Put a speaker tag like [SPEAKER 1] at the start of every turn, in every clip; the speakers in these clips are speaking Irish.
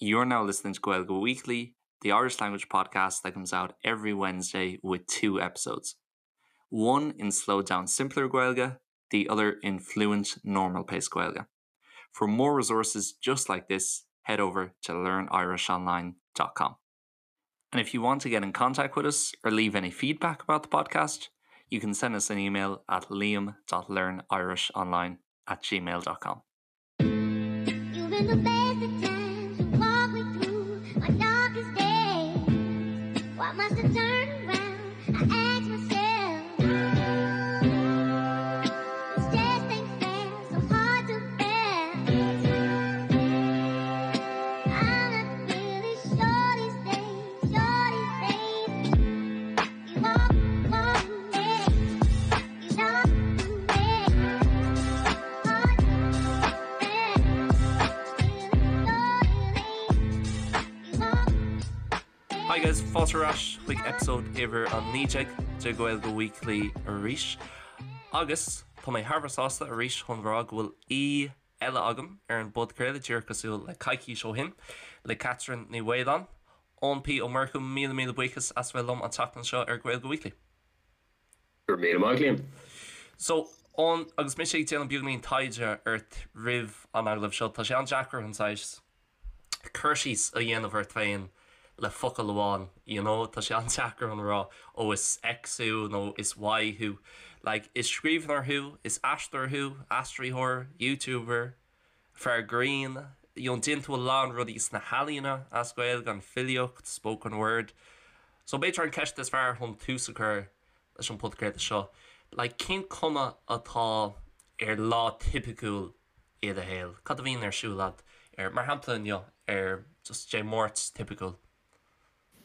[SPEAKER 1] You're now listening to Gaeilge Weekly, the Irish language podcast that comes out every Wednesday with two episodes. One in slowed down simpler Gaeilge, the other in fluent normal pace Gaeilge. For more resources just like this, head over to learnirishonline.com. And if you want to get in contact with us or leave any feedback about the podcast, you can send us an email at liam.learnirishonline at gmail.com.
[SPEAKER 2] You've been the best of times. You walk me through my darkest days. Why must I turn around? I ask myself. This just ain't fair, so hard to bear. I'm not really sure these days, sure these days. You walk, walk me, you talk to me. Hard to bear. You walk.
[SPEAKER 1] Hi guys, fáilte ar ais chuig episode uimhir 19 de Gaeilge Weekly arís. Agus tá mé thar a bheith sásta arís chun rá go bhfuil aoi eile agam ar an bpodchraoladh díreach cosúil le coicís ó shin le Catherine Ní Mhaoláin. Eoin P Ó Murchú míle míle buíochas as bheith liom an tseachtain seo ar Gaeilge Weekly.
[SPEAKER 3] Go raibh míle maith, Liam.
[SPEAKER 1] So, Eoin, agus mise ag déanamh beagáinín taighde ort roimh an agallamh seo, tá sé an-deacair an saghas cur síos a dhéanamh ort féin le focal amháin, you know, tá sé an-deacair chun rá, ó is X thú nó is Y thú. Like, is scríbhneoir thú, is aisteoir thú, aistritheoir, YouTuber, fear grinn, you know, déanann tú a lán rudaí sna healaíona as Gaeilge, an filíocht, spoken word. So b'fhéidir an ceist is fearr chun tús a chur leis an podchraoladh seo, like, cén cuma atá ar lá tipiciúil i do shaol? Cad a bhíonn ar siúl agat ar, mar shampla inniu, ar just Dé Máirt tipiciúil?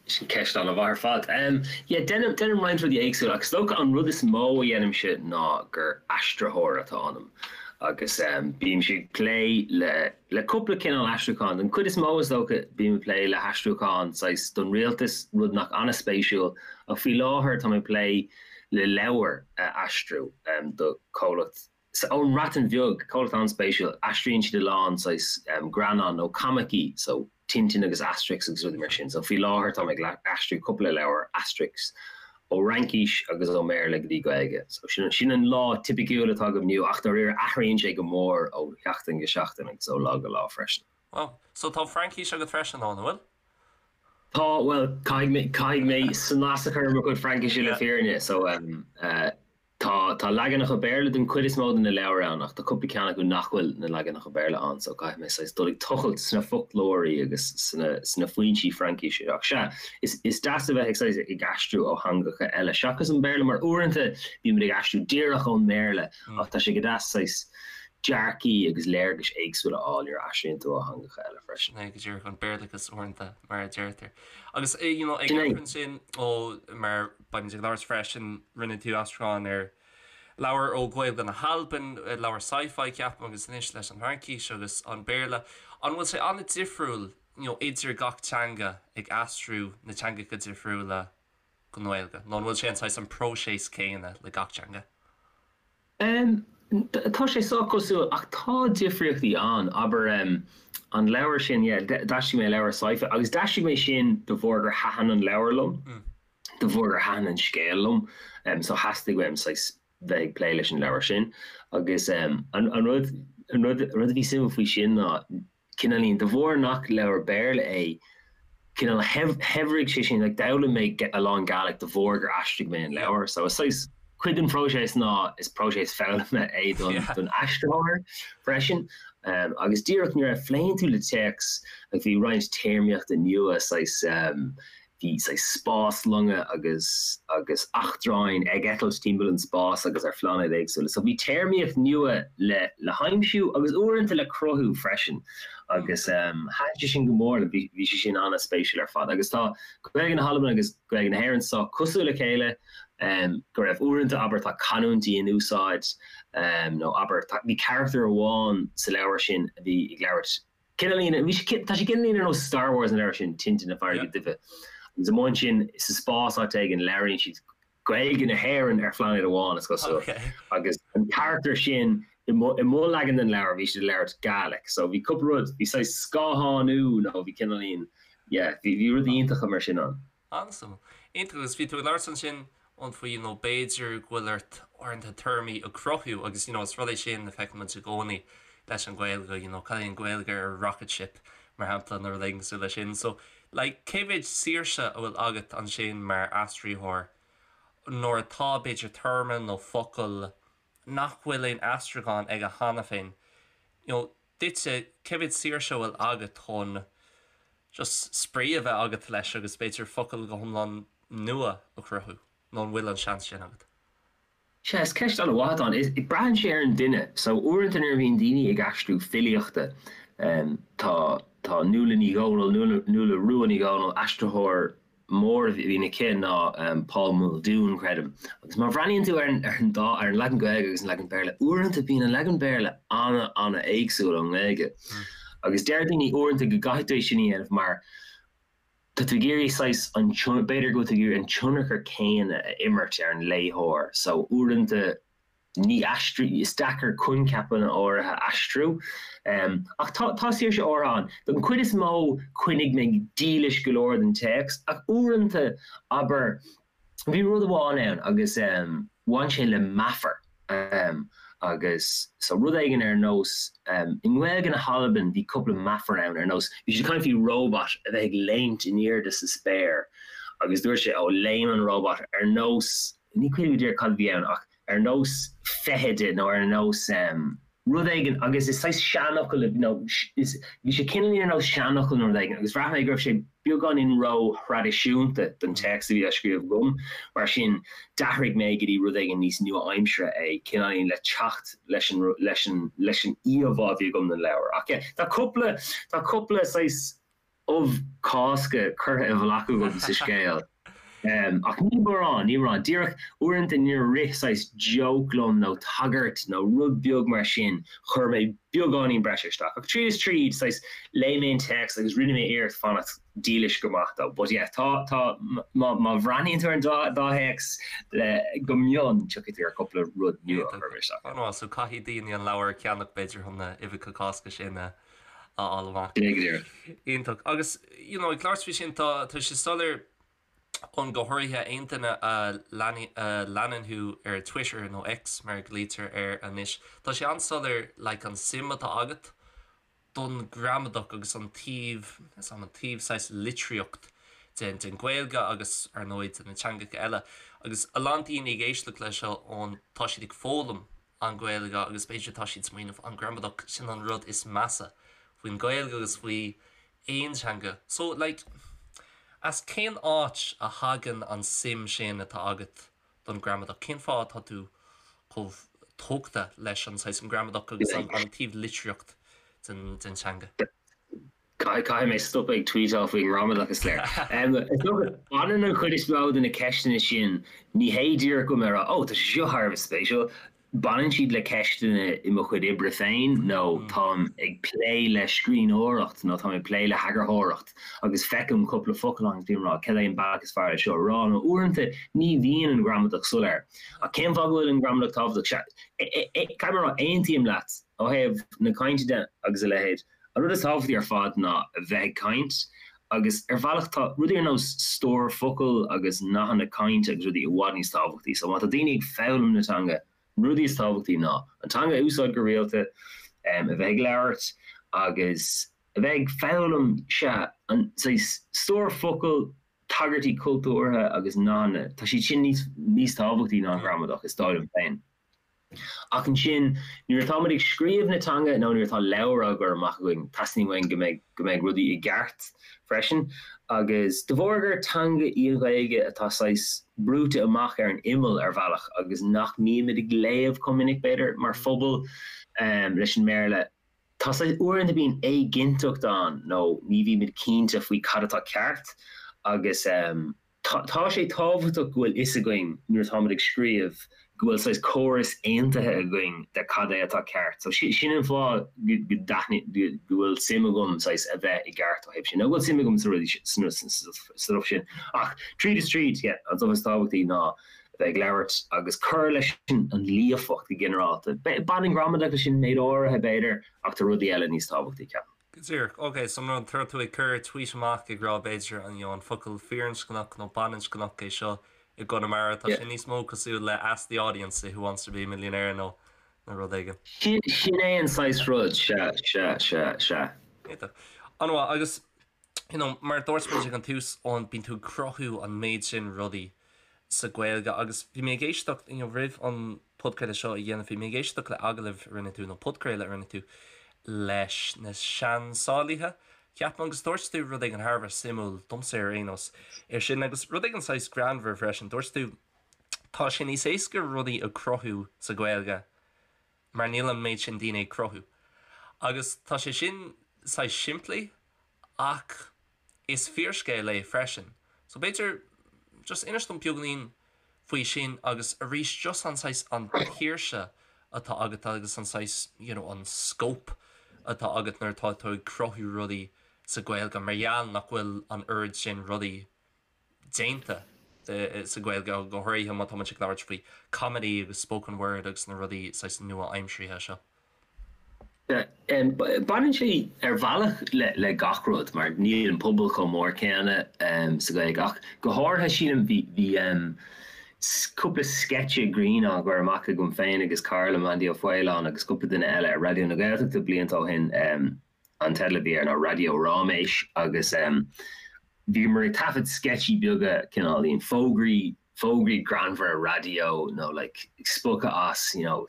[SPEAKER 3] Sin ceist an-mhaith ar fad. Yeah, déanaim, déanaim roinnt rudaí éagsúla ach is dócha an rud is mó a dhéanaimse ná gur aistritheoir atá ionam agus bímse ag plé le, le cúpla cineál aistriúcháin. Den chuid is mó is dócha bím ag plé le haistriúcháin saghas don rialtas, rud nach an-spéisiúil ach faoi láthair tá mé ag plé le leabhar a aistriú do chomhlacht ón mBreatain Bheag, comhlacht an-spéisiúil, aistríonn siad a lán saghas greannán nó coimicí, so Tintin agus Asterix agus rudaí mar sin. So faoi láthair táim ag aistriú cúpla leabhar Asterix ó Fhraincis agus ó mBéarla go dtí Gaeilge. So sin sin an lá tipiciúil atá agam inniu ach dáiríre athraíonn sé go mór ó sheachtain go seachtain agus ó lá go lá freisin.
[SPEAKER 1] Wow. So tá Fraincis agat freisin, an bhfuil?
[SPEAKER 3] Tá, bhuel, caithfidh mé, caithfidh mé snas a chur ar mo chuid Fraincise le fírinne, so eh, Tá, tá leaganacha Béarla den chuid is mó de na leabhair ann ach tá cúpla ceann acu nach bhfuil na leaganacha Béarla ann so caithfidh mé saghas dul ag tochailt sna foclóirí agus sna, sna foinsí Fraincise. Ach sea, is, is deas a bheith ag saghas ag aistriú ó theangacha eile seachas an Béarla mar uaireanta bímid ag aistriú díreach ón mBéarla ach tá sé go deas saghas dearcaí agus léargais éagsúla a fháil nuair a aistríonn tú ó theangacha eile freisin.
[SPEAKER 1] Sin é go díreach an Béarlachas uaireanta mar a deirtear. Agus you know ag amharc ansin ó mar beimid ag labhairt freisin rinne tú aistriúchán ar leabhar ó Ghaeilge na hAlban, leabhar sci-fi ceapaim agus anois leis an Fhraincis agus an Béarla. An bhfuil sé an-difriúil you know idir gach teanga ag aistriú na teangacha difriúla go nGaeilge nó an bhfuil sé an saghas an próiseas céanna le gach teanga?
[SPEAKER 3] Tá sé sách cosúil ach tá difríochtaí ann. Abair, an leabhar sin, yeah, d'aistrigh mé leabhar sci-fi agus d'aistrigh mé sin de bharr gur thaitin an leabhar liom, de bharr gur thaitin an scéal liom. So theastaigh uaim saghas bheith ag plé leis an leabhar sin. Agus an rud, an rud, an rud a bhí suimiúil faoi sin ná cineáilín, de bharr nach leabhar Béarla é, cineál shaibhrigh sé sin, like d'fhoghlaim mé a lán Gàidhlig de bharr gur aistrigh mé an leabhar. So is saghas cuid den phróiseas ná is próiseas foghlama é don don aistritheoir freisin. Um, agus díreach nuair a phléann tú le téacs, like bhí roinnt téarmaíochta nua saghas um, Bhí saghas spáslonga agus agus eachtráin ag eitilt timpeall an spáis agus ar phláinéid éagsúla. So bhí téarmaíocht nua le le haimsiú agus uaireanta le cruthú freisin agus thaitin sé sin go mór liom. Bhí bhí sé sin an-spéisiúil ar fad. Agus tá Gaeilge na hAlban agus Gaeilge na hÉireann sách cosúil le chéile, go raibh uaireanta, abair, tá canúintí in úsáid nó abair, tá bhí carachtar amháin sa leabhar sin a bhí ag labhairt Cineáilín, bhí sé, tá sé cineáilín ar nós Star Wars an leabhar sin, Tintin na Farraige Duibhe. Agus amuigh ansin sa spás áit éigin labhraíonn siad Gaeilge na hÉireann ar phláinéad amháin, is cosúil. Agus an carachtar sin, I mo leagan den leabhar bhí siad ag labhairt Gaelic so bhí cúpla rud, bhí saghas scáthánú nó bhí cineáilín, yeah, bhí bhí rudaí iontacha mar sin ann.
[SPEAKER 1] An-suimiúil. Iontach agus bhí tú ag labhairt ansin ann faoi you know b'fhéidir go bhfuil ort uaireanta téarmaí a chruthú agus you know is rud é sin a feiceann muid i gcónaí leis an Ghaeilge you know cad é an Ghaeilge ar rocket ship mar shampla nó rud éigin cosúil leis sin so like cé mhéid saoirse a bhfuil agat ansin mar aistritheoir nuair atá b'fhéidir téarma nó focal nach bhfuil aon aistriúchán aige cheana féin, you know, duitse, cé mhéad saoirse a bhfuil agat chun just spraoi a bheith agat leis agus b'fhéidir focal go hiomlán nua a chruthú, nó an bhfuil an seans sin agat?
[SPEAKER 3] Sea, is ceist an-mhaith atá ann. Is, braitheann sé ar an duine. So, uaireanta nuair a bhíonn daoine ag aistriú filíochta, tá, tá Nuala Ní Dhomhnaill, Nuala, Nuala Rua Ní Dhomhnaill, aistritheoir mór a bhíonn aici ná Paul Muldoon, creidim. Agus má bhreathnaíonn tú ar an ar an dá ar an leagan Gaeilge agus an leagan Béarla, uaireanta bíonn an leagan Béarla an-an-éagsúil ón nGaeilge. Agus deir daoine uaireanta go gcaithfidh tú é sin a dhéanamh mar tá tú ag iarraidh saghas an b'fhéidir go bhfuil tú ag iarraidh an tionchar céanna a imirt ar an léitheoir. So uaireanta ní aistriú, is deacair coincheapanna áirithe a aistriú. Ach tá, tá saoirse áirithe ann. Don chuid is mó, choinnigh mé dílis go leor don téacs, ach uaireanta, abair, bhí rud amháin ann agus bhain sé le meafar agus so rud éigin ar nós, i nGaeilge na hAlban bhí cúpla meafar ann ar nós, bhí siad ag caint faoi robot a bheith ag léimt in airde sa spéir agus dúirt sé, ó léim an robot ar nós, ní cuimhin liom go díreach cad a bhí ann ach ar nós feithide nó ar nós rud éigin agus is saghas seanfhocal nó is bhí sé cineáilín ar nós seanfhocal nó rud éigin agus bhraith mé go raibh sé beagáinín ró-thraidisiúnta don téacs a bhí á scríobh agam mar sin d'athraigh mé go dtí rud éigin níos nua-aimseartha é cineáilín le teacht leis an leis an leis an íomhá a bhí agam den leabhar ach yeah tá cúpla tá cúpla saghas ubh Cásca curtha i bhfolach agam sa scéal. Ach ní mórán, ní mórán. Díreach uaireanta nuair a rith saghas joke liom nó tagairt nó rud beag mar sin, chuir mé beagáinín breise isteach. Ach tríd is tríd, saghas, léigh mé an téacs agus rinne mé iarracht fanacht dílis go maith dó. But yeah, tá, tá, má, má bhreathnaíonn tú ar an dá, dá théacs le, go mion, tiocfaidh tú ar cúpla rud nua a chuir mé isteach.
[SPEAKER 1] An-mhaith, so caithfidh daoine an leabhar a cheannach b'fhéidir chun na huibheacha Cásca sin a a fháil amach.
[SPEAKER 3] Go díreach.
[SPEAKER 1] Iontach. Agus, you know, ag labhairt faoi sin, tá, tá sé soiléir ann go háirithe aon duine a leanann thú ar Twitter nó X mar a ghlaoitear air anois, tá sé an-soiléir like an suim atá agat don gramadach agus an taobh, is an taobh saghas litríocht den, den Ghaeilge agus ar ndóigh de na teangacha eile. Agus a lán daoine ag éisteacht leis seo ann, tá siad ag foghlaim an Ghaeilge agus b'fhéidir tá siad smaoineamh an gramadach sin an rud is measa faoin Ghaeilge agus faoi aon teanga. So like as cén áit a thagann an suim sin atá agat don gramadach? Cén fáth atá tú chomh tógtha leis an saghas an gramadach agus an an taobh litríocht den den teanga?
[SPEAKER 3] Caithfidh mé stopadh ag tweetáil faoin ngramadach, is léir. Is dócha, baineann an chuid is mó de na ceisteanna sin, ní hé díreach go bhfuil mé ag rá, 'Ó, tá sé seo thar a bheith spéisiúil', baineann siad le ceisteanna i mo chuid oibre féin nó táim ag plé le scríbhneoireacht nó táim ag plé le heagarthóireacht agus feicim cúpla focal agus bím ag rá, 'Cad é an bealach is fearr le seo a rá? Nó uaireanta ní bhíonn an ghramadach soiléir. Ach cén fáth go bhfuil an ghramadach tábhachtach? Sea, caithfidh mé a rá, aontaím leat ó thaobh na cainte de agus a leithéid. An rud is tábhachtaí ar fad ná a bheith ag caint agus ar bhealach tá rudaí ar nós stór focal agus nathanna cainte agus rudaí i bhfad níos tábhachtaí. So má tá daoine ag foghlaim na teanga, na rudaí is tábhachtaí ná an teanga a úsáid go rialta, a bheith ag labhairt agus a bheith ag foghlaim, sea, an saghas stór focal, tagairtí cultúrtha agus nathanna, tá siad sin níos níos tábhachtaí ná an ghramadach, is dóigh liom féin. Ach ansin, nuair atáimid ag scríobh na teanga nó nuair atá leabhar á gcur amach againn, teastaíonn uainn go mbeidh, go mbeidh rudaí i gceart freisin. Agus de bharr gur teanga í an Ghaeilge atá saghas brúite amach ar an imeall ar bhealach agus nach mbímid ag léamh chomh minic, b'fhéidir, mar phobal leis an mBéarla, tá saghas, uaireanta bíonn éiginnteacht ann nó ní bhímid cinnte faoi cad atá ceart agus. Tá sé tábhachtach go bhfuil fhios againn nuair atáimid ag scríobh go bhfuil saghas córas aontaithe againn de cad é atá ceart. So sin an fáth go go bhfuil suim agam saghas a bheith i gceart ó thaobh sin, nó go bhfuil suim agam sa rudaí sa stuff sin. Ach tríd is tríd, yeah, an stuff is tábhachtaí ná. a bheith ag labhairt agus cur leis an líofacht go ginearálta. Baineann gramadach leis sin méid áirithe, b'fhéidir, ach tá rudaí eile níos tábhachtaí, ceapaim.
[SPEAKER 1] Go díreach. Ok, so nuair atá tú ag cur tweet amach ag rá b'fhéidir an you know an focal firinscneach nó baininscneach é seo i gConamara, tá sé níos mó cosúil le Ask the Audience i Who Wants to Be a Millionaire nó nó rud éigin.
[SPEAKER 3] Sin é an saghas rud, sea, sea, sea, sea.
[SPEAKER 1] Iontach. An-mhaith. Agus you know, mar a dúirt muid ag an tús, Eoin, bíonn tú ag cruthú an méid sin rudaí sa Ghaeilge agus bhí mé ag éisteacht, you know, roimh an podchraoladh seo a dhéanamh, bhí mé ag éisteacht le agallamh a rinne tú, nó podchraoladh a rinne tú leis na Seansálaithe, ceapaim, agus dúirt tú rud éigin thar a bheith suimiúil, domsa ar aon nós, ar sin agus rud éigin saghas greannmhar freisin, dúirt tú, tá sé níos éasca rudaí a chruthú sa Ghaeilge mar níl an méid sin daoine ag cruthú. Agus tá sé sin saghas simplí ach is fíorscéal é freisin. So b'fhéidir just inis dom beagáinín faoi sin agus arís just an saghas an tsaoirse atá agat agus an saghas you know an scope atá agat nuair atá tú ag cruthú rudaí sa Ghaeilge mar gheall nach bhfuil an oiread sin rudaí déanta sa Ghaeilge, go háirithe má tá muid ag labhairt faoi comedy agus spoken word agus na rudaí saghas nua-aimseartha seo.
[SPEAKER 3] Baineann sé ar bhealach le gach rud mar níl an pobal chomh mór céanna sa Ghaeilge ach go háirithe sílim bhí cúpla sceitse grinn á gcur amach agam féin agus cara liom Andy Ó Faoláin agus cúpla duine eile ar Raidió na Gaeltachta blianta ó shin. An teideal a bhí air ná Raidió Ráiméis agus bhíomar ag taifead sceitsí beaga cineáilín fógraí, fógraí greannmhara raidió nó like spochadh as you know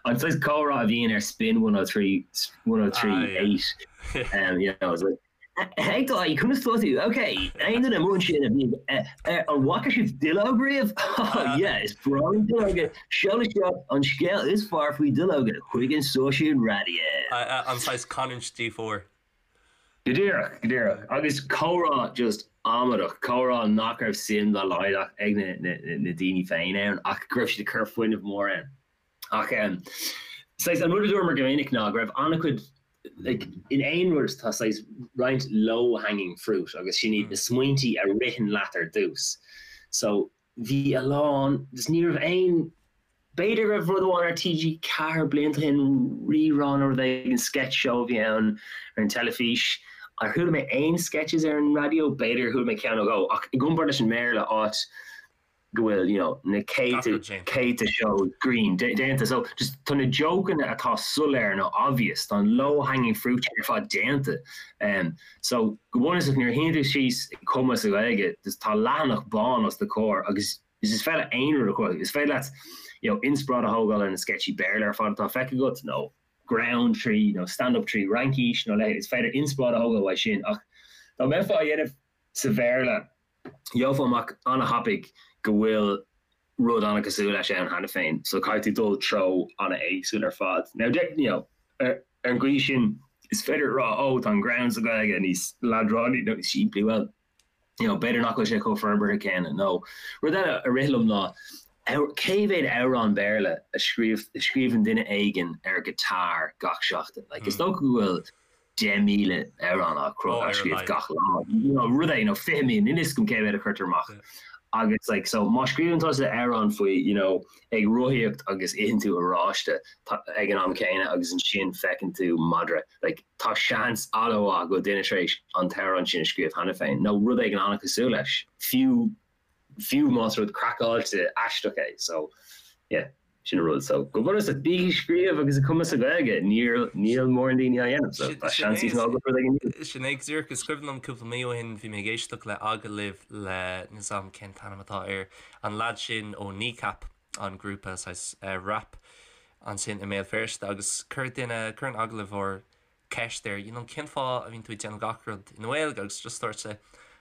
[SPEAKER 3] an saghas comhrá a bhíonn ar Spin 103, 103 8 you know it's like Hey Dáithí, conas tá tú? Ok, aon duine amuigh ansin a bhí an bhfaca sibh duilleog riamh? Oh yeah, is breá liom duilleoga. Seol isteach an scéal is fearr faoi duilleoga chuig an stáisiún raidió.
[SPEAKER 1] An saghas canúint D4.
[SPEAKER 3] Go díreach, go díreach. Agus comhrá just amadach, comhrá nach raibh suim dá laghad ag na daoine féin ann ach go raibh siad ag cur fuinneamh mór ann. Ach saghas an rud a dúramar go minic ná go raibh an-chuid like in aon rud tá saghas roinnt low hanging fruit agus sin iad na smaointí a ritheann leat ar dtús. So bhí a lán, just ní raibh aon, b'fhéidir go raibh rud amháin ar TG4 blianta ó shin, Rí-Rá nó rud éigin, sketch show a bhí ann ar an teilifís. Ar chuala mé aon sketches ar an raidió? B'fhéidir gur chuala mé ceann nó dhó ach i gcomparáid leis an mBéarla áit go bhfuil you know na céadta céadta seó grinn déanta so just tá na jokeanna atá soiléir nó obvious tá an low hanging fruit ar fad déanta um, so go bunúsach nuair a shuíonn tú síos ag cumadh sa Ghaeilge just tá leathanach bán os do chomhair agus is féidir leat aon rud a chruthú is féidir leat you know inspioráid a thógáil ar na sceitsí Béarla ar fad atá feicthe agat nó greann trí nó stand up trí Fhraincis nó leithéid is féidir inspioráid a thógáil uaidh sin ach dá mbeifeá á dhéanamh sa Bhéarla Gheofá amach an-thapaidh go bhfuil rud an-chosúil leis ann cheana féin, so caithfidh tú dul treo an-éagsúil ar fad. Now, you know, ar an gcaoi sin, is féidir a rá, oh, tá an greann sa Ghaeilge níos leadránaí nó níos simplí, well, you know, b'fhéidir nach bhfuil sé chomh forbartha céanna. Nó rud eile a rith liom ná, cé mhéad amhrán Béarla a scríobh, a scríobhann duine éigin ar guitar gach seachtain? Like, is dócha go bhfuil 10,000 amhrán á á scríobh gach lá. Rud é, you know, 20,000, níl a fhios agam cé mhéad a chuirtear amach. Agus like, so má scríobhann tusa amhrán faoi, you know, ag rothaíocht agus itheann tú oráiste ag an am céanna agus ansin feiceann tú madra, like, tá seans an-mhaith go bhfuil duine tar éis an t-amhrán sin a scríobh cheana féin, nó rud éigin an-chosúil leis, fiú fiú más rud craiceáilte aisteach é. So, yeah, sin an rud. So, go bunúsach, bígí ag scríobh agus ag cumadh sa Ghaeilge. Níl, níl mórán daoine á dhéanamh, so tá seans níos mó agat rud éigin
[SPEAKER 1] nua. Sin é go díreach. Is cuimhin liom cúpla mí ó shin, bhí mé ag éisteacht le agallamh le, níl 's a'm cén t-ainm atá air, an leaid sin ó Kneecap, an grúpa saghas rap ansin i Mbéal Feirste agus chuir duine, chuir an agallóir ceist air, you know, cén fáth a mbíonn tú ag déanamh gach rud i nGaeilge agus just dúirt sé,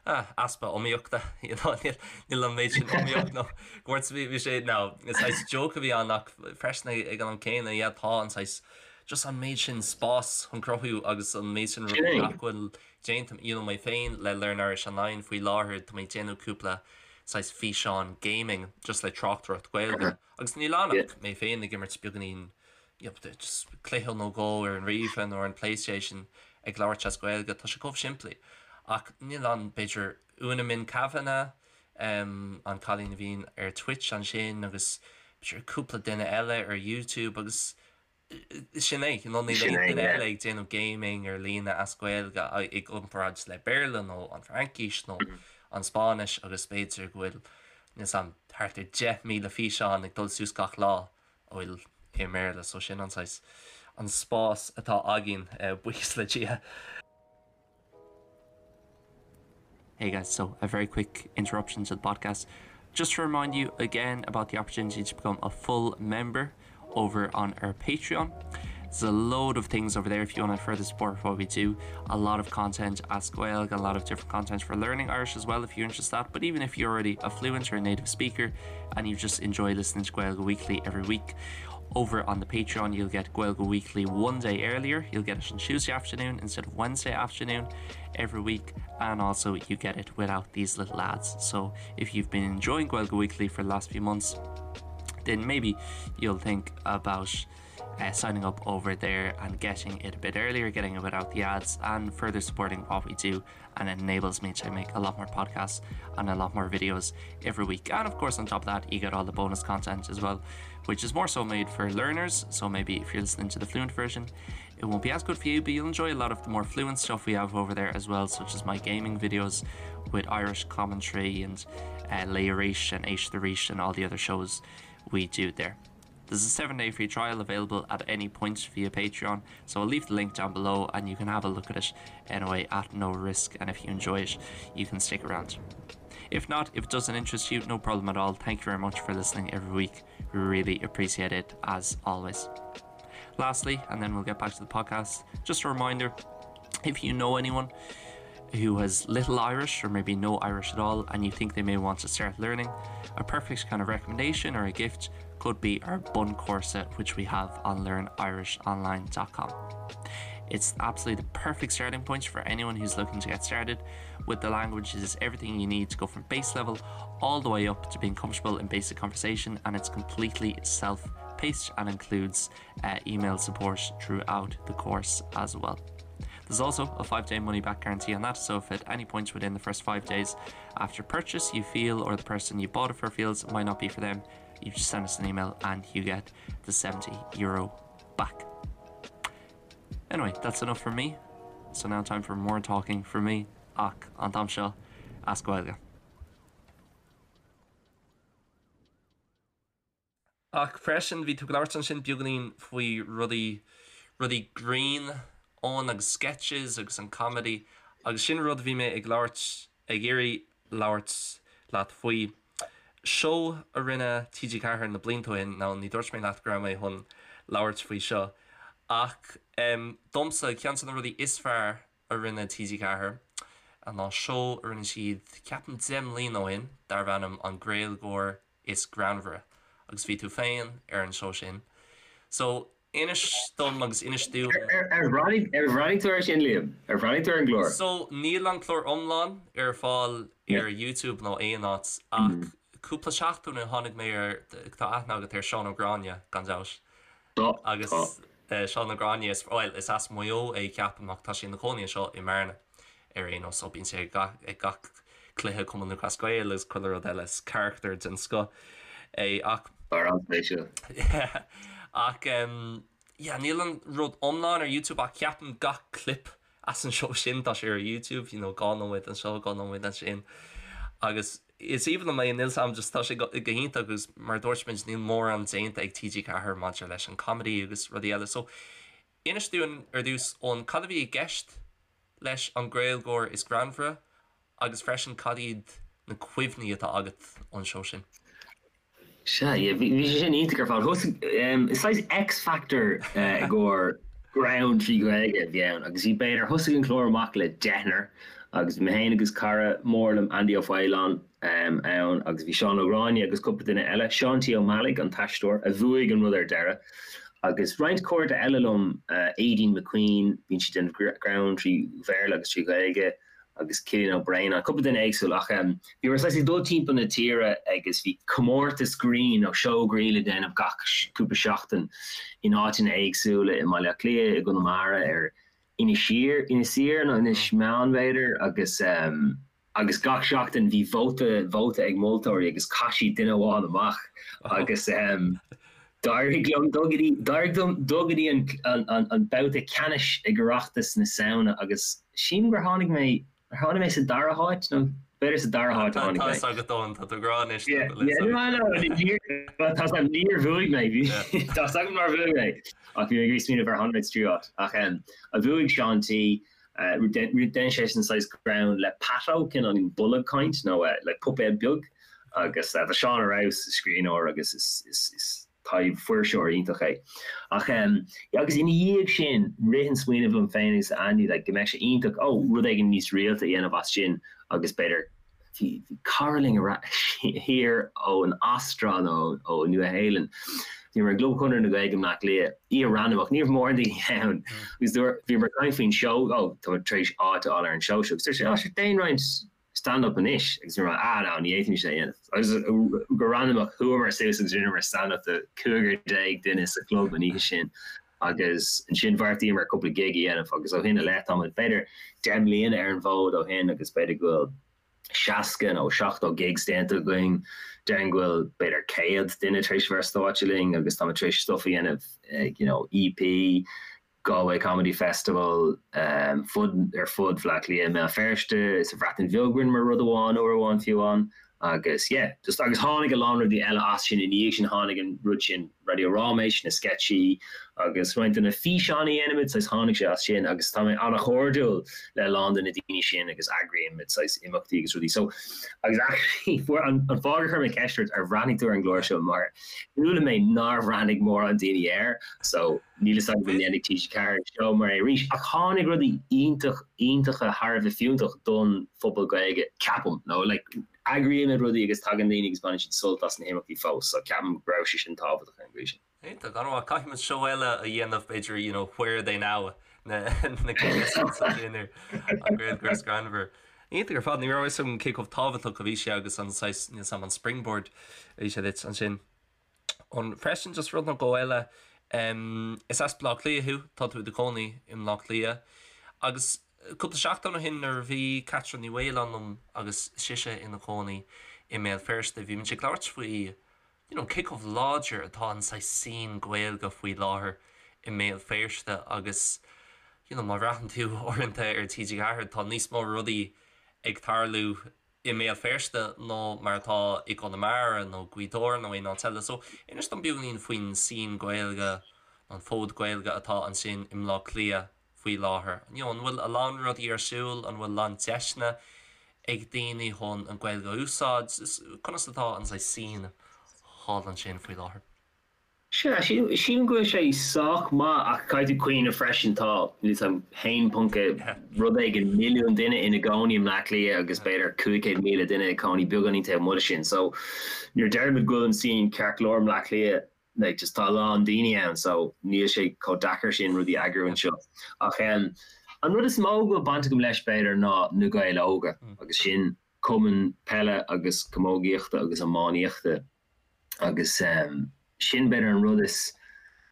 [SPEAKER 1] ah, easpa iomaíochta, you know, níl, níl an méid sin iomaíocht nó go bhfuil bhí sé, no, is saghas joke a bhí ann ach freisin ag an am céanna, yeah, tá an saghas, just an méid sin spás chun cruthú agus an méid sin rudaí nach bhfuil déanta, you know, mé féin le Learn Irish Online faoi láthair, tá mé ag déanamh cúpla saghas físeán gaming just le tráchtaireacht Gaeilge agus níl ann ach mé féin ag imirt beagáinín just cluiche nó dhó ar an ríomhaire nó ar an PlayStation ag labhairt as Gaeilge, tá sé chomh simplí. Ach níl ann, b'fhéidir, Úna Minh Kavanagh. an cailín a bhíonn ar Twitch ansin agus b'fhéidir cúpla duine eile ar YouTube agus sin é, you know, níl aon duine eile ag déanamh gaming ar líne as Gaeilge i gcomparáid le Béarla nó an Fhraincis nó an Spáinnis agus b'fhéidir go bhfuil níl 's a'm thart ar 10,000 físeán ag dul suas gach lá a bhfuil i mBéarla so sin an saghas an spás atá againn buíochas le Dia. Hey guys, so a very quick interruption to the podcast. Just to remind you again about the opportunity to become a full member over on our Patreon. There's a load of things over there if you want to further support what we do. A lot of content as Gaeilge, a lot of different content for learning Irish as well if you're interested that. But even if you're already a fluent or a native speaker and you just enjoy listening to Gaeilge Weekly every week, over on the Patreon you'll get Gaeilge Weekly one day earlier. You'll get it on Tuesday afternoon instead of Wednesday afternoon every week and also you get it without these little ads. So if you've been enjoying Gaeilge Weekly for the last few months, then maybe you'll think about uh, signing up over there and getting it a bit earlier, getting it without the ads and further supporting what we do and it enables me to make a lot more podcasts and a lot more videos every week. And of course on top of that you get all the bonus content as well, which is more so made for learners, so maybe if you're listening to the fluent version, it won't be as good for you, but you'll enjoy a lot of the more fluent stuff we have over there as well, such as my gaming videos with Irish commentary and uh, Leirish and H the Reach and all the other shows we do there. There's a 7-day free trial available at any point via Patreon, so I'll leave the link down below and you can have a look at it anyway at no risk and if you enjoy it, you can stick around. If not, if it doesn't interest you, no problem at all. Thank you very much for listening every week. We really appreciate it as always. Lastly, and then we'll get back to the podcast, just a reminder, if you know anyone who has little Irish or maybe no Irish at all and you think they may want to start learning, a perfect kind of recommendation or a gift could be our bun corset which we have on learnirishonline.com. It's absolutely the perfect starting point for anyone who's looking to get started with the language. It is everything you need to go from base level all the way up to being comfortable in basic conversation and it's completely self-paced and includes uh, email support throughout the course as well. There's also a 5-day money-back guarantee on that, so if at any point within the first 5 days after purchase you feel or the person you bought it for feels it might not be for them, you just send us an email and you get the 70 euro back. Anyway, that's enough for me. So now time for more talking for me ach an t-am seo as Gaeilge. Ach freisin bhí tú ag labhairt ansin beagáinín faoi rudaí, rudaí grinn ann agus sketches agus an comedy agus sin rud a bhí mé ag labhairt, ag iarraidh labhairt leat faoi. Seó a rinne TG4 na blianta ó shin, now ní dúirt mé leat go raibh mé chun labhairt faoi seo ach domsa ceann de na rudaí is fearr a rinne TG4 ná seó a rinne siad ceapaim 10 mbliana ó shin darbh ainm An Gaeilgeoir is Greannmhaire agus bhí tú féin ar an seó sin. So inis dom agus inis dúinn.
[SPEAKER 3] Ar bhreathnaigh tú air sin, Liam? Ar bhreathnaigh tú ar an gclár?
[SPEAKER 1] So níl an clár iomlán ar fáil ar YouTube nó aon áit ach cúpla seachtain ó shin tháinig mé ar, tá aithne agat ar Seán Ó Gráinne gan dabht.
[SPEAKER 3] Tá,
[SPEAKER 1] Agus Seán Ó Gráinne, is, bhuel, is as Maigh Eo é ceapaim ach tá sé ina chónaí anseo i mBearna ar aon nós so bíonn sé ag gach cluiche Cumann Lúthchleas Gael agus chuile rud eile, is carachtar den scoth é ach.
[SPEAKER 3] Fear an-spéisiúil.
[SPEAKER 1] Yeah ach yeah níl an rud iomlán ar YouTube ach ceapaim gach clip as an seó sin tá sé ar YouTube, you know, 2 nóiméad anseo, 2 nóiméad ansin agus is aoibhinn liom é, níl 's a'm just tá sé go hiontach agus mar a dúirt muid níl mórán déanta ag TG4 maidir leis an comedy agus rudaí eile so inis dúinn ar dtús Eoin cad a bhí i gceist leis an Gaeilgeoir is Greannmhaire agus freisin cad iad na cuimhní atá agat ón seó sin?
[SPEAKER 3] Sea, yeah, bhí sé sin iontach ar fad. Thosaigh, is saghas X Factor i gcomhair greann trí Ghaeilge a bhí ann agus bhí b'fhéidir, thosaigh an clár amach le deichniúr agus bhí mé féin agus cara mór liom, Andy Ó Faoláin, ann agus bhí Seán Ó Gráinne agus cúpla duine eile, Seán T. Ó Meallaigh, an t-aisteoir, a bhuaigh an rud ar deireadh agus roinnt cairde eile liom, Aideen McQueen, bíonn sí ag déanamh greann trí Bhéarla agus trí Ghaeilge, agus Cillian Ó Braonáin, cúpla duine éagsúil ach bhíomar saghas ag dul timpeall na tíre agus bhí comórtas grinn nó seó grinn le déanamh gach cúpla seachtain in áiteanna éagsúla i mBaile Átha Cliath, i gConamara, ar Inis Oírr, Inis Oírr nó Inis Meáin b'fhéidir agus. Agus gach seachtain bhí vóta vóta ag moltóirí agus chaith siad duine amháin amach agus d'éirigh liom dul go dtí d'éirigh liom dul go dtí an an an babhta ceannais ag Oireachtas na Samhna agus sílim gur tháinig mé ar tháinig mé sa dara háit nó b'fhéidir sa dara háit a tháinig mé.
[SPEAKER 1] Tá a fhios agat Eoin, tá tú ag rá anois
[SPEAKER 3] nach bhfuil a fhios agat. Tá a fhios agam níor bhuaigh mé, tá a fhios agam nár bhuaigh mé ach bhí mé ag smaoineamh ar tháinig mé sa tríú háit ach bhuaigh Seán T Dhein seisean saghas greann le Pato, cineál bolg caint nó like puipéad beag agus tá Seán ar fheabhas, is scríbhneoir agus is taibh-fuirseoir iontach é. Ach yeah agus ina dhiaidh sin rith an smaoineamh liom féin agus Andy like go mbeadh sé iontach, oh rud éigin níos rialta a dhéanamh as sin agus b'fhéidir Bhí cara linn thiar ón Astráil nó ó Nua Shéalainn. Bhíomar i gClub Chonradh na Gaeilge i mBleá Cliath, oíche randamach, ní raibh mórán daoine ann. Agus dúirt, bhíomar ag caint faoin seó, ó, tá muid tar éis áit a fháil ar an seó seo. Agus dúirt sé, ó, sure, déan roinnt stand-up anois. Agus bhíomar, ah, no, ní fhéadfaimis é a dhéanamh. Agus go randamach, chuamar suas agus rinneamar stand-up do 15 duine sa chlub an oíche sin. Agus ansin bheartaíomar cúpla gig a dhéanamh agus ó shin i leith táimid b'fhéidir 10 mbliana ar an bhfód ó shin agus b'fhéidir go bhfuil 60 nó 70 gigs déanta againn. Déarfainn go bhfuil b'fhéidir 100 duine tar éis a bheith ar stáitse linn agus táimid tar éis stuff a dhéanamh ag you know EP, Galway Comedy Festival, fud ar fud Bhaile Átha Cliath, i mBéal Feirste, sa Bhreatain Bheag rinneamar rud amháin uair amháin fiú amháin. Agus yeah, just agus tháinig a lán rudaí eile as sin i ndiaidh sin, tháinig an rud sin Raidió Ráiméis, na sceitsí agus roinnt de na físeáin a dhéanaimid, saghas tháinig sé as sin agus tá mé an-chairdiúil le a lán de na daoine sin agus eagraímid saghas imeachtaí agus rudaí. So, agus actually fuair an an fáth gur chuir mé ceist ort ar bhreathnaigh tú ar an gclár seo mar chuala mé nár bhreathnaigh mórán daoine air so níl fhios agam an ndéanfaidh TG4 seó mar é arís ach tháinig rudaí iontach iontacha thar a bheith fiúntach don phobal Gaeilge ceapaim nó like eagraímid rudaí agus tagann daoine agus baineann siad sult as na himeachtaí fós so ceapaim go raibh sé sin tábhachtach ar an gcaoi sin.
[SPEAKER 1] Iontach, an-mhaith. Caithfidh muid seó eile a dhéanamh b'fhéidir you know where are they now na na contestants sin ar an Gaeilgeoir is greannmhar. Iontach ar fad, ní raibh a fhios agam cé chomh tábhachtach a bhí sé agus an saghas níl 's a'm an springboard a bhí sé duit ansin. An freisin just rud nó dhó eile, is as Baile Átha Cliath thú, tá tú i do chónaí i mBleá Cliath agus cúpla seachtain ó shin nuair a bhí Caitriona Ní Mhaoláin liom agus sise ina cónaí i mBéal Feirste bhí muid ag labhairt faoi you know cé chomh láidir atá an saghas scene Gaeilge faoi láthair i mBéal Feirste agus you know má bhreathann tú uaireanta ar TG4 tá níos mó rudaí ag tarlú i mBéal Feirste ná mar atá i gConamara nó Gaoth Dobhair nó aon áit eile. So, inis dom beagáinín faoin scene Gaeilge, an fód Gaeilge atá ansin i mBleá Cliath faoi láthair. You know, an bhfuil a lán rudaí ar siúl, an bhfuil a lán deiseanna ag daoine chun an Ghaeilge a úsáid? Conas atá an saghas scene thall ansin faoi láthair?
[SPEAKER 3] Sea, sílim go bhfuil sé sách maith ach caithfidh tú cuimhneamh freisin tá, níl 'fhios a'm, haon ponc rud éigin milliún duine ina gcónaí i mBleá Cliath agus b'fhéidir 500,000 duine ag cónaí beagáinín taobh amuigh de sin. So nuair a deirimid go bhfuil an scene ceart go leor i mBleá Cliath, like just tá a lán daoine ann so níl sé chomh deacair sin rudaí a eagrú anseo. Ach an rud is mó go bhfuil baint agam leis b'fhéidir ná Na Gaeil Óga agus sin cumann peile agus camógaíochta agus iománaíochta. Agus sin b'fhéidir an rud is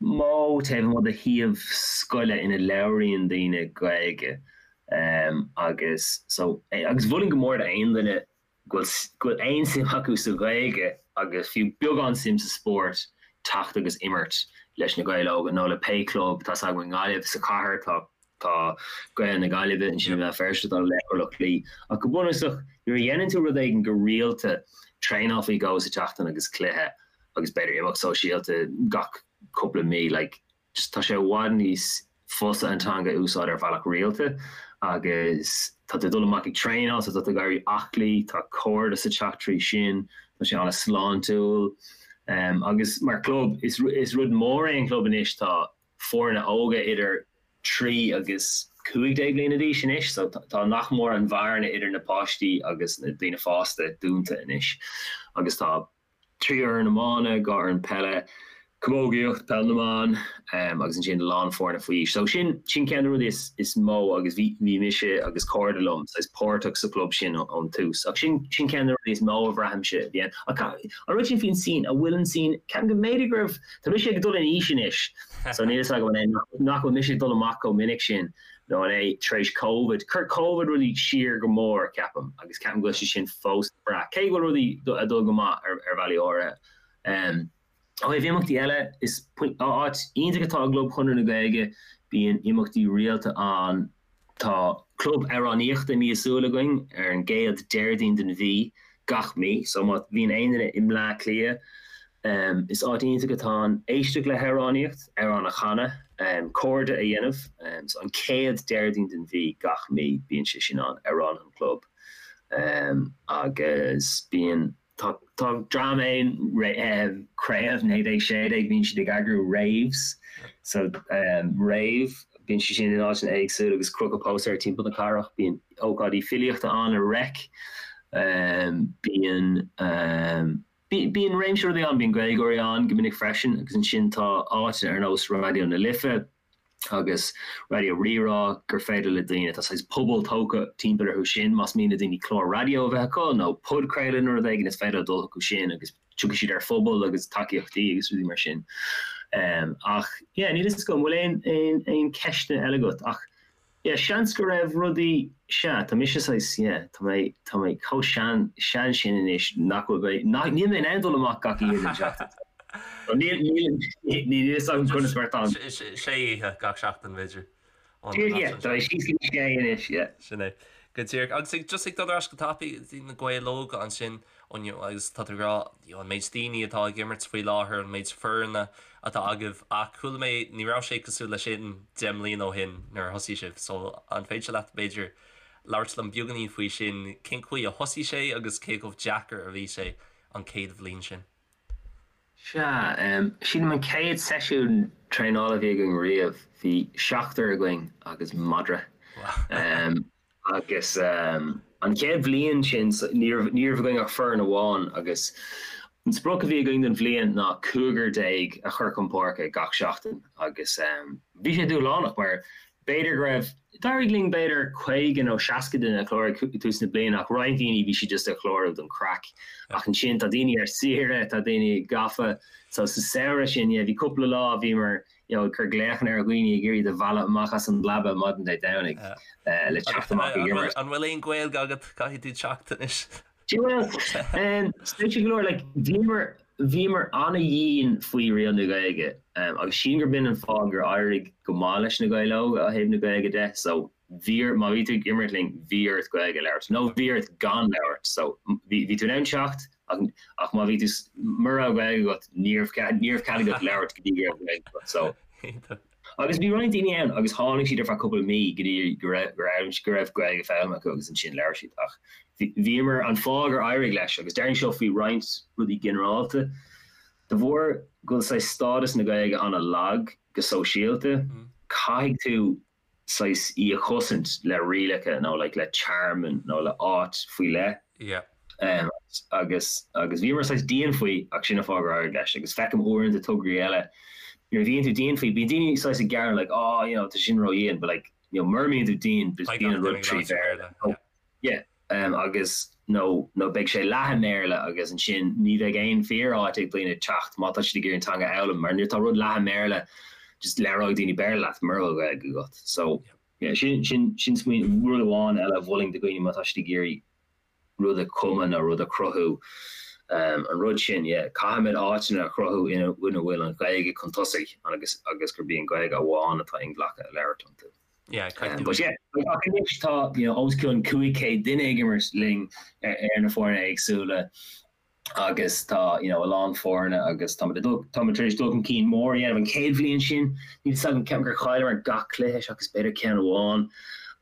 [SPEAKER 3] mó taobh amuigh de shuíomh scoile ina labhraíonn daoine Gaeilge. Agus so, agus mholfainn go mór d'aon duine go bhfuil, go bhfuil aon suim acu sa Ghaeilge agus fiú beagán suim sa spórt teacht agus imirt leis na Gaeil Óga nó le pé club, tá's agam i nGaillimh sa chathair tá Tá Gaeil na Gaillimhe ansin i mBéal Feirste, tá Laochra Loch Lao. Ach go bunúsach, nuair a dhéanann tú rud éigin go rialta, traenáil faoi dhó sa tseachtain agus cluiche agus b'fhéidir imeacht sóisialta gach cúpla mí, like, just tá sé i bhfad níos fusa an teanga a úsáid ar bhealach rialta agus tá tú ag dul amach ag traenáil so tá tú ag éirí aclaí, tá cairdeas ag teacht trí sin, tá sé an-sláintiúil. Agus mar chlub, is rud mór é an club anois, tá foirne óga idir 3 agus 15 bliana d'aois anois so tá nach mór an bhearna idir na páistí agus na daoine fásta dúnta anois agus tá 3 fhoireann iomána, 2 fhoireann peile, Camógaíocht, Peil na mBan agus ansin a lán foirne faoi aois. So sin, sin ceann de na rudaí is, is mó agus bhí, bhí mise agus cairde liom saghas páirteach sa chlub sin ón tús. Ach sin, sin ceann de na rudaí is mó a bhraithimse a bhí ann. Ach an rud sin faoin scene, an bhfuil an scene, ceapaim go mb'fhéidir go raibh, tá mise ag dul in aois anois so níl fhios agam an é nach, nach bhfuil mise ag dul amach chomh minic sin nó an é tar éis Covid. Chuir Covid rudaí siar go mór ceapaim agus ceapaim go bhfuil sé sin fós ag brath. Cé go bhfuil rudaí ag dul go maith ar, ar bhealaí áirithe. Ó thaobh imeachtaí eile, is áit iontach atá i gClub Chonradh na Gaeilge, bíonn imeachtaí rialta ann. Tá club amhránaíochta míosúil againn ar an gcéad Déardaoin den mhí gach mí, so má bhíonn aon duine i mBleá Cliath, is áit iontach atá ann éisteacht le hamhránaíocht, amhrán a chanadh, cairde a dhéanamh. So an chéad Déardaoin den mhí gach mí bíonn sé sin ann, Amhránaithe an Chlub. Agus bíonn. Tá dream ann, Craobh 1916, bíonn siad ag eagrú raves, so rave, bíonn siad sin in áiteanna éagsúla agus crochadh póstaeir timpeall na cathrach, bíonn ócáidí filíochta ann i Reic, bíonn bíonn réimse rudaí ann, bíonn Gaeilgeoirí ann go minic freisin agus ansin tá áiteanna ar nós Raidió na Life, agus Raidió Rí-Rá gur féidir le daoine, tá saghas pobal tógtha timpeall orthu sin, más mian le daoine clár raidió a bheith acu nó podchraoladh nó rud éigin is féidir leo dul chucu sin agus tiocfaidh siad ar phobal agus tacaíochtaí agus rudaí mar sin. Ach yeah, níl fhios agam, an bhfuil aon, aon, aon ceisteanna eile agat ach yeah, seans go raibh rudaí, sea, tá mise saghas, yeah, tá mé, tá mé chomh sean, sean sin anois nach bhfuil mé, nach, níl mé in ann dul amach gach oíche den tseachtain. Níl, níl, níl fhios agam conas mar atá an.
[SPEAKER 1] Sé oíche gach seachtain, b'fhéidir.
[SPEAKER 3] Yeah, tá mé síos go dtí sé anois, yeah.
[SPEAKER 1] Sin é. Go díreach. Agus ag, just ag dul ar ais go tapaidh go dtí na Gaeil Óga ansin, agus tá tú ag rá, you know, an méid daoine atá ag imirt faoi láthair, an méid foirne atá agaibh, ach chuala mé, ní raibh sé cosúil leis sin 10 mbliana ó shin nuair a thosaigh sibh, so an féidir leat, b'fhéidir, labhairt liom beagáinín faoi sin, cén chaoi a thosaigh sé agus cé chomh deacair a bhí sé an chéad bhliain sin?
[SPEAKER 3] Sea, sílim an chéad seisiún traenála a bhí againn riamh, bhí seachtar againn agus madra. Agus an chéad bhliain sin, ní raibh ní raibh againn ach foireann amháin agus an sprioc a bhí againn don bhliain ná cúigear déag a chur chun páirce gach seachtain agus bhí sé dúshlánach mar B'fhéidir go raibh, d'éirigh linn b'fhéidir 50 nó 60 duine a chlárú ag tús na bliana ach roinnt daoine bhí siad just ag clárú don craic. Ach ansin tá daoine ar saoire, tá daoine gafa so sa samhradh sin yeah bhí cúpla lá bhíomar you know ag cur glaochanna ar dhaoine ag iarraidh iad a mhealladh amach as an leaba maidin Dé Domhnaigh le teacht amach ag imirt.
[SPEAKER 1] An bhfuil aon Ghaeilge agat? Caithfidh tú teacht anois.
[SPEAKER 3] Bhuel, spéisiúil go leor, like, bhíomar, bhíomar ana-dhian faoi riail na Gaeilge, agus sílim gurb in an fáth gur éirigh go maith leis na Gaeil Óga ó thaobh na Gaeilge de, so bhí ort, má bhí tú ag imirt linn, bhí ort Gaeilge a labhairt, nó bhí ort gan labhairt, so bhí, bhí tú in ann teacht, ach, ach má bhí tú, mura raibh Gaeilge agat, ní raibh cead, ní raibh cead agat labhairt go dtí go raibh Gaeilge agat, so. Agus bhí roinnt daoine ann agus tháinig siad ar feadh cúpla mí go dtí go raibh go raibh go raibh Gaeilge foghlamtha acu agus ansin labhair siad. Ach bhíomar, an fáth gur éirigh leis, agus déarfainn seo faoi roinnt rudaí ginearálta, de bharr go bhfuil saghas stádas na Gaeilge an-lag go sóisialta, caithfidh tú saghas í a chosaint le rialacha nó like le tearmann nó le áit faoi leith.
[SPEAKER 1] Yeah.
[SPEAKER 3] Agus agus bhíomar saghas dian faoi ach sin an fáth gur éirigh leis agus feicim uaireanta tograí eile nuair a bhíonn tú dian faoi bíonn daoine saghas ag gearán like oh you know tá sin ródhian but like you know mura mbíonn tú dian bíonn an rud trí Bhéarla. Yeah agus nó nó beidh sé leath i mBéarla agus ansin ní bheidh aon fíor-áit ag daoine teacht má tá siad ag iarraidh an teanga a fhoghlaim mar nuair atá rud leath i mBéarla just labhróidh daoine Béarla leat mura bhfuil Gaeilge agat. So yeah sin sin sin smaoineamh rud amháin eile a mholfainn do dhaoine má tá siad ag iarraidh rud a chumadh nó rud a chruthú an rud sin yeah caithfimid áiteanna a chruthú ina ina bhfuil an Ghaeilge chun tosaigh agus agus gurb í an Ghaeilge amháin atá inghlactha a labhairt iontu.
[SPEAKER 1] Yeah,
[SPEAKER 3] but yeah, ach anois tá you know, os cionn 500 duine ag imirt linn ar, ar na foirne éagsúla agus tá you know, a lán foirne agus tá dul tá tar éis dul chun cinn mór a dhéanamh an chéad bhliain sin níl fhios agam ceapaim gur chailleamar gach cluiche seachas b'fhéidir ceann amháin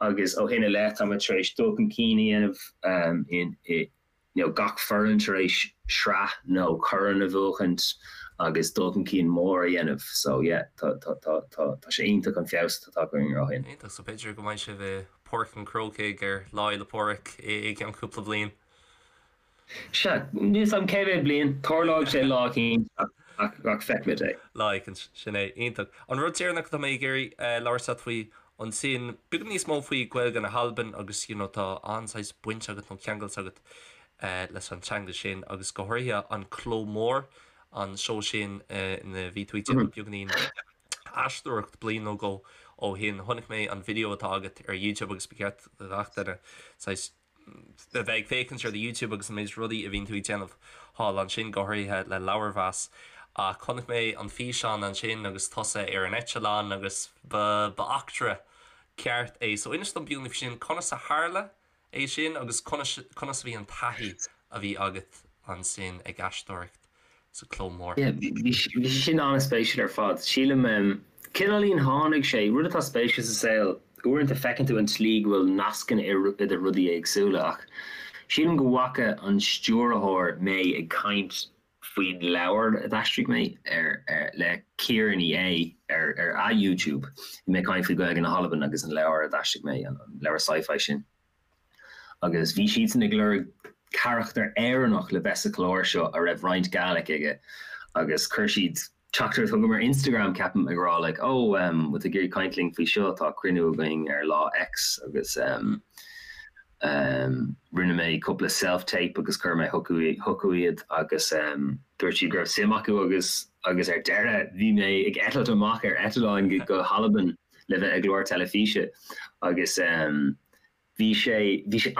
[SPEAKER 3] agus ó shin i leith tá tar éis dul chun cinn a dhéanamh um, in, i, you know, gach foireann tar éis sraith nó corn a bhuachaint agus dul chun cinn mór a dhéanamh. So yeah, tá, tá, tá, tá, tá sé iontach an feabhas atá tagtha orainn ó shin.
[SPEAKER 1] Iontach, so b'fhéidir go mbeidh sibh i Páirc an Chrócaigh ar Lá Fhéile Pádraig i gceann cúpla bliain.
[SPEAKER 3] Sea, níl fhios agam cé mhéad bliain, tarlóidh sé lá eicínt. Ach feicfimid é.
[SPEAKER 1] Lá éicint, sin é. Iontach. An rud deireanach atá mé ag iarraidh labhairt leat faoi ansin, beagán níos mó faoi Gaeilge na hAlban agus you know tá an-saghas baint agat nó ceangailt agat leis an teanga sin agus go háirithe an Cló Mór, an seó sin ina bhí tú ag déanamh beagáinín aisteoireacht bliain nó dhó ó shin. Chonaic mé an video atá agat ar YouTube agus ba cheart do gach duine saghas a bheith ag féachaint ar do YouTube agus an méid rudaí a bhíonn tú ag déanamh thall ansin, go háirithe le leabharmheas. Ach chonaic mé an físeán ansin agus tusa ar an eitleán agus ba ba eachtra ceart é. So inis dom beagáinín faoi sin, conas a tharla é sin agus conas conas a bhí an taithí a bhí agat ansin ag aisteoireacht sa Cló Mór?
[SPEAKER 3] Yeah, bhí sé sin an-spéisiúil ar fad. Sílim, cineáilín tháinig sé, rud atá spéisiúil sa saol, uaireanta feiceann tú an tslí go bhfuil nascanna idir rudaí éagsúla ach sílim go bhfaca an stiúrthóir mé ag caint faoin leabhar a d'aistrigh mé ar, le Ciara Ní É ar ar a YouTube. Bhí mé ag caint faoi Gaeilge na hAlban agus an leabhar a d'aistrigh mé, an leabhar sci-fi sin. Agus bhí siadsan ag lorg carachtar Éireannach le bheith sa chlár seo a raibh roinnt Gaelic aige agus chuir siad teachtaireacht chugam ar Instagram, ceapaim, ag rá like oh um bhfuil tú ag iarraidh caint linn faoi seo, tá cruinniú againn ar lá X agus um um rinne mé cúpla self-tape agus chuir mé chucu iad agus um dúirt siad go raibh suim acu agus agus ar deireadh bhí mé ag eitilt amach ar eitleán go hAlbain le bheith i gclár teilifíse agus bhí sé, bhí sé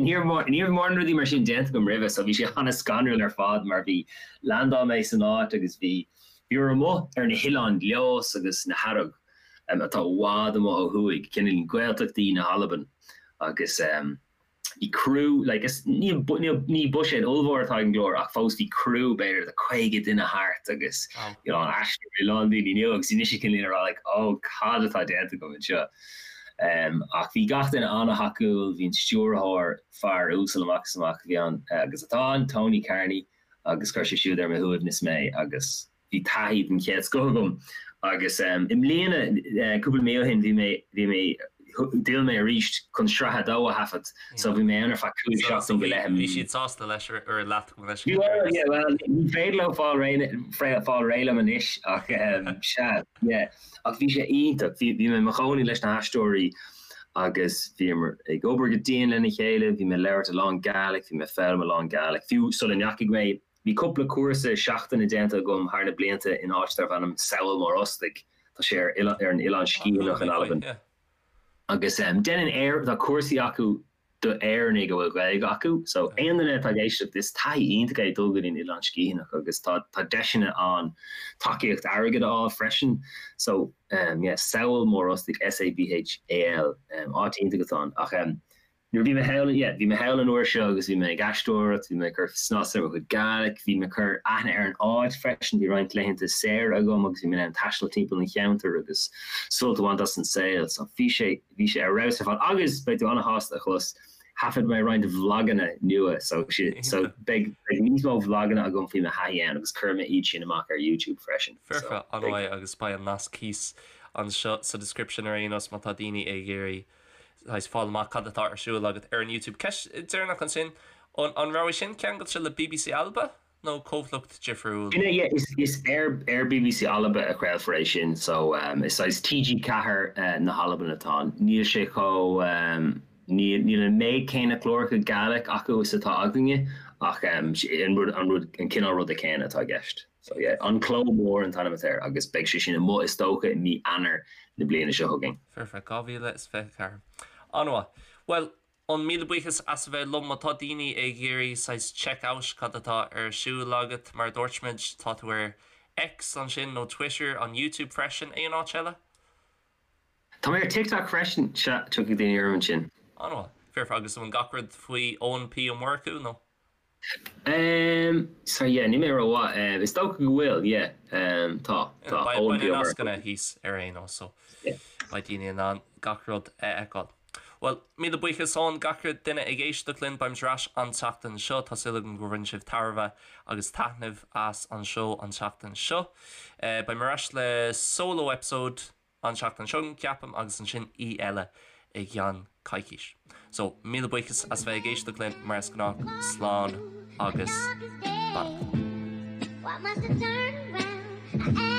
[SPEAKER 3] ní raibh ní raibh mórán rudaí mar sin déanta agam roimhe so bhí sé an-scanrúil ar fad mar bhí, landáil mé san áit agus bhí, bhíomar amuigh ar na hOileáin Leòdhas agus na hEarraig atá i bhfad amuigh ó thuaidh, cineál Gaeltachtaí na hAlban agus. Bhí criú, like, is ní, ní buiséad ollmhór atá ag an gclár ach fós bhí criú b'fhéidir de 50 duine thart agus you know, aisteoirí, a lán daoine nua agus bhí mise cineál ag rá like oh cad atá déanta agam anseo. Um, ach bhí gach duine an-thacúil, bhí an stiúrthóir fear uasal amach is amach a bhí ann agus atá ann, Tony Carney, agus chuir sé siúd ar mo shuaimhneas mé agus bhí taithí den chéad scoth agam agus i mbliana, cúpla mí ó shin, bhí mé, bhí mé, d'fhill mé arís chun sraith a dó a thaifead so bhí mé ann ar feadh 5 seachtain go leith i
[SPEAKER 1] Bhí siad sásta leis ar leat go
[SPEAKER 3] leis. Bhuel, yeah, well, ní féidir leo fáil réidh, fáil réidh liom anois ach sea, yeah. Ach bhí sé iontach, bhí, bhí mé i mo chónaí leis na haisteoirí agus bhíomar ag obair go dian lena chéile, bhí mé ag labhairt a lán Gaelic, bhí mé ag foghlaim a lán Gaelic, fiú sula ndeachaigh mé Bhí cúpla cúrsa seachtaine déanta agam thar na blianta in áit darbh ainm Sabhal Mòr Ostaig, tá sé ar ar an Oileán Sgitheanach in Albain. Agus déanann Éir, tá cúrsaí acu do Éireannaigh a bhfuil Gaeilge acu, so aon duine atá ag éisteacht, is taithí iontach é dul go dtí an Oileán Sgitheanach agus tá tá deiseanna ann tacaíocht airgid a fháil freisin. So yeah, Sabhal Mòr Ostaig, S-A-B-H-A-L, áit iontach atá ann. Ach Nuair a bhí mé thall, yeah, bhí mé thall an uair seo agus bhí mé ag aisteoireacht, bhí mé ag cur snas ar mo chuid Gaelic, bhí mé ag cur aithne ar an áit freisin, bhí roinnt laethanta saora agam agus bhí mé in ann taisteal timpeall an cheantair agus sult a bhaint as an saol. So bhí sé, bhí sé ar fheabhas ar fad agus beidh tú an-shásta a chlos, thaifead mé roinnt vloganna nua so, so beidh, beidh níos mó vloganna agam faoi mo thaithí ann agus cuirfidh mé iad sin amach ar YouTube freisin.
[SPEAKER 1] Foirfe, So beidh. an-mhaith agus beidh an nasc thíos anseo sa description ar aon nós má tá daoine ag iarraidh saghas fáil amach cad atá ar siúl agat ar an YouTube. Ceist deireanach ansin, an raibh é sin ceangailte le bbc Alba nó comhlacht difriúil?
[SPEAKER 3] Sin é, yeah, is ar ar bbc Alba a chraolfar é sin, so is saghas TG4 na hAlban atá ann. Níl sé chomh, níl níl an méid céanna cláracha Gaelic acu is atá againne ach an rud an rud an cineál ruda céanna atá i gceist. So yeah, An Cló Mór an t-ainm atá air agus beidh sé sin amuigh is dócha i mí Eanáir na bliana seo chugainn.
[SPEAKER 1] Foirfe, 2024. An-mhaith. Bhuel, an míle buíochas as a bheith liom. Má tá daoine ag iarraidh saghas check out cad atá ar siúl agat, mar a dúirt muid, tá tú ar X ansin nó Twitter, an YouTube freisin, aon áit eile?
[SPEAKER 3] Tá mé ar TikTok freisin, sea, tiocfaidh daoine orm ansin.
[SPEAKER 1] An-mhaith. Foirfe, agus an bhfuil gach rud faoi Eoin P Ó Murchú nó?
[SPEAKER 3] Ehm, sorry, yeah, níl mé rómhaith. Ehm, is dócha go bhfuil, yeah. Ehm, tá, tá.
[SPEAKER 1] Beidh na nascanna thíos ar aon nós, so beidh daoine in ann gach rud a fheiceáil. Bhuel, míle buíochas Eoin, gach duine ag éisteacht linn, beimid ar ais an tseachtain seo. Tá súil agam gur bhain sibh tairbhe agus taitneamh as an seó an tseachtain seo. Beidh mé ar ais le solo episode an tseachtain seo chugainn, ceapaim, agus ansin aoi eile i gceann coicís. So, míle buíochas as bheith ag éisteacht linn, mar is gnách, slán agus beannacht.
[SPEAKER 2] Why must I turn around?